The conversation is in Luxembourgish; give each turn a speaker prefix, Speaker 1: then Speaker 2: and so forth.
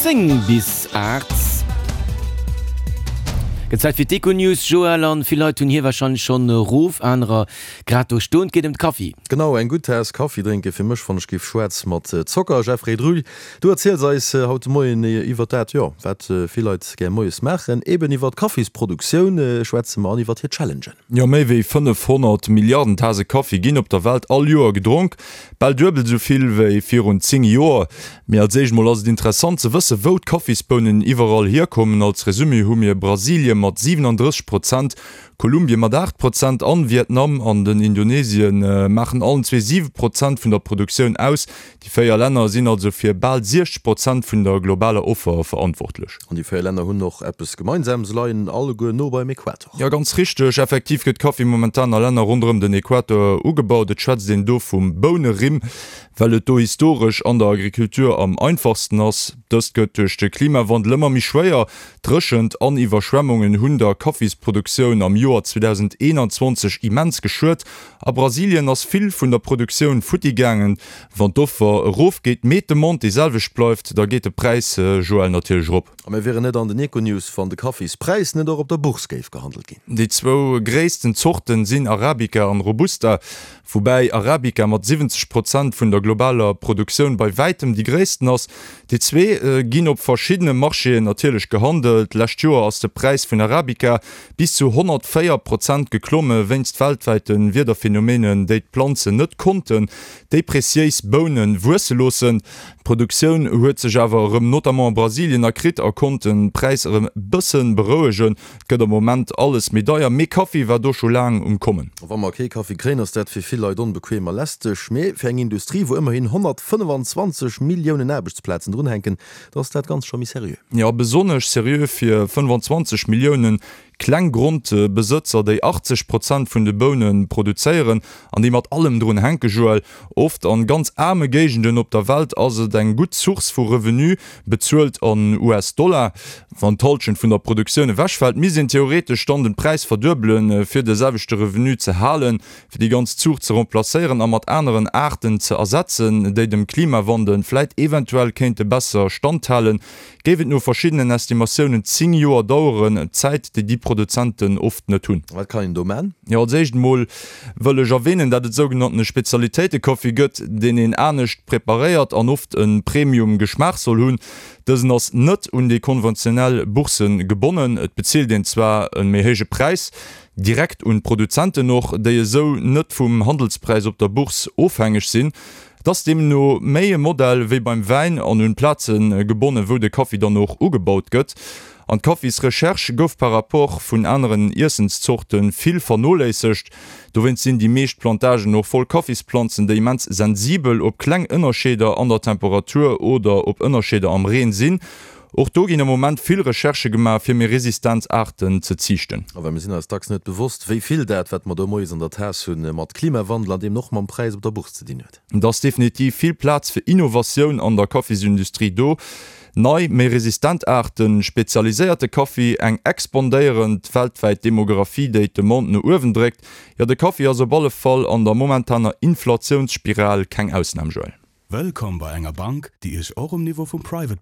Speaker 1: 10 bis 8. Gëtt Zäit fir d'Econews, Joël, an vill Leit hunn hir wahrscheinlech schonn erof, anerer grad do stoen. Et geet ëm de Kaffi.
Speaker 2: Genau, eng gutt Taass Kaffi drénke fir mech, wann ech géif schwaarz mat Zocker. Jeffrey Drull, du erziels eis haut de Moien iwwer dat, jo, wat vill Leit gär moies maachen, eben iwwer d'Kaffisproduktioun schwätze mer an iwwer hir Challengen.
Speaker 3: Jo, méi wéi 500 Milliarden Tase Kaffi ginn op der Welt all Joer gedronk. Bal duebel esou vill wéi virun 10 Joer. Mee als éischt mol ass et interessant ze wësse wou d'Kaffisbounen iwwerall hierkommen. Als Resumé hu mir Brasilie mat 37 Prozent, Kolumbie mat 8 Prozent an Vietnam an den Indonesien maachen allen zwee 7 Prozent vun der Produktioun aus. Déi 4 Länner sinn also fir bal 60 Prozent vun der globaler Offer verantwortlech.
Speaker 2: An déi 4 Länner hunn och eppes gemeinsam, se leien alleguer no beim Äquator.
Speaker 3: Jo, ganz richteg. Effektiv gëtt Kaffi momentan a Länner ronderëm den Äquator ugebaut. Et schwätzt een do vum Bounerimm, well et do historesch an der Agriculture am einfachsten ass. Dëst gëtt duerch de Klimawandel ëmmer méi schwéier. Dréchent an Iwwerschwemmungen hunn der Kaffisproduktioun am Joer 2021 immens geschuet. A Brasilien ass vill vun der Produktioun futti gaangen. Wann d'Offer erofgeet, mee d'Demande déi selwecht bleift, da geet de Präis, Joël, natierlech erop.
Speaker 2: A mir wieren net an den Econews, wann de Kaffispräis net och op der Bourse géif gehandelt ginn.
Speaker 3: Déi zwou gréissten Zorten sinn Arabica an Robusta, woubäi Arabica mat 70 Prozent vun der globaler Produktioun bei wäitem déi gréissten ass. Déi zwee ginn op verschiddene Marchéen natierlech gehandelt. Lescht Joer ass de Präis vun Arabica bis zu 104 Prozent geklomme wéinst weltwäite Wiederphenomenen, déi d'Planzen net konnten déi preziéis Bounen wuesse loossen. D'Produktioun huet sech awer erëm notamment a Brasilien erkritt a konnt de Präis erëm bësse berouegen. Et gëtt am Moment alles méi deier, mee Kaffi war do scho laang um Kommen.
Speaker 2: Wa mer kee Kaffi kréien, ass dat fir vill Leit onbequem a lästeg. Mee fir eng Industrie, wou ëmmerhin 125 Milliounen Aarbechtsplazen drunhänken, da ass dat Ganzt scho méi seriö.
Speaker 3: Jo, besonnesch seriö fir 25 Milliounen Kleng Grondbesëtzer, déi 80 Prozent vun de Boune produzéieren an déi mat allem drun hänken, Joël. Oft an ganz aarme Géigenden op der Welt ass et eng gutt Source vu Revenu, bezuelt an US-Dollar. Wann d'Halschent vun der Produktioun ewechfält, misst een theoretesch dann den Präis verduebelen, fir de selwechte Revenu ze halen. Fir déi ganz Zuucht ze remplacéieren a mat aneren Aarten ze ersetzen, déi dem Klimawandel vläit eventuell kéinte besser standhalen, Géif et no verschiddenen Estimatiounen 10 Joer daueren, Zäit, déi déi Produzenten oft net hunn.
Speaker 2: Wat kann een do man?
Speaker 3: Jo, als éischt emol wëll ech erwähnen, dat et sougenannte Spezialitéite-Kaffi gëtt, deen een anescht preparéiert an oft e Premium-Geschmaach soll hunn. Dësen ass net un déi konventionell Bourse gebonnen. Et bezilt een zwar e méi héije Präis, direkt un d'Produzenten och, déi esou net vum Handelspräis op der Bourse ofhängeg sinn. Et ass deemno méi e Modell wéi beim Wäin an un d'Plaze gebonnen, wou de Kaffi dann och ugebaut gëtt. An d'Kaffisrecherche gouf par rapport vun aneren Iessenszorte vill vernoléissegt. Dowéinst sinn déi meescht Plantagen och voll Kaffisplanzen, déi immens sensibel op kleng Ënnerscheeder an der Temperatur oder op Ënnerscheeder am Reen sinn. Och do ginn am Moment vill Recherchë gemaach, fir méi resistent Aarten ze ziichten.
Speaker 2: A well mir sinn eis dacks net bewosst, wéi vill dat, wat mer do moies an der Taass hunn, mat Klimawandel an deemno och mam Präis op der Bourse ze dinn huet.
Speaker 3: Et ass definitiv vill Plaz fir Innovatioun an der Kaffisindustrie do. Nei, méi resistent Aarten, spezialiséierte Kaffi, eng expandéierend weltwäit Demographie, déi d'Demande no uewen dréckt. Jo, de Kaffi ass op alle Fall an der momentaner Inflatiounsspiral keng Ausnam, Joël.
Speaker 4: Wëllkomm bei enger Bank, déi Iech och um Niveau vum Private.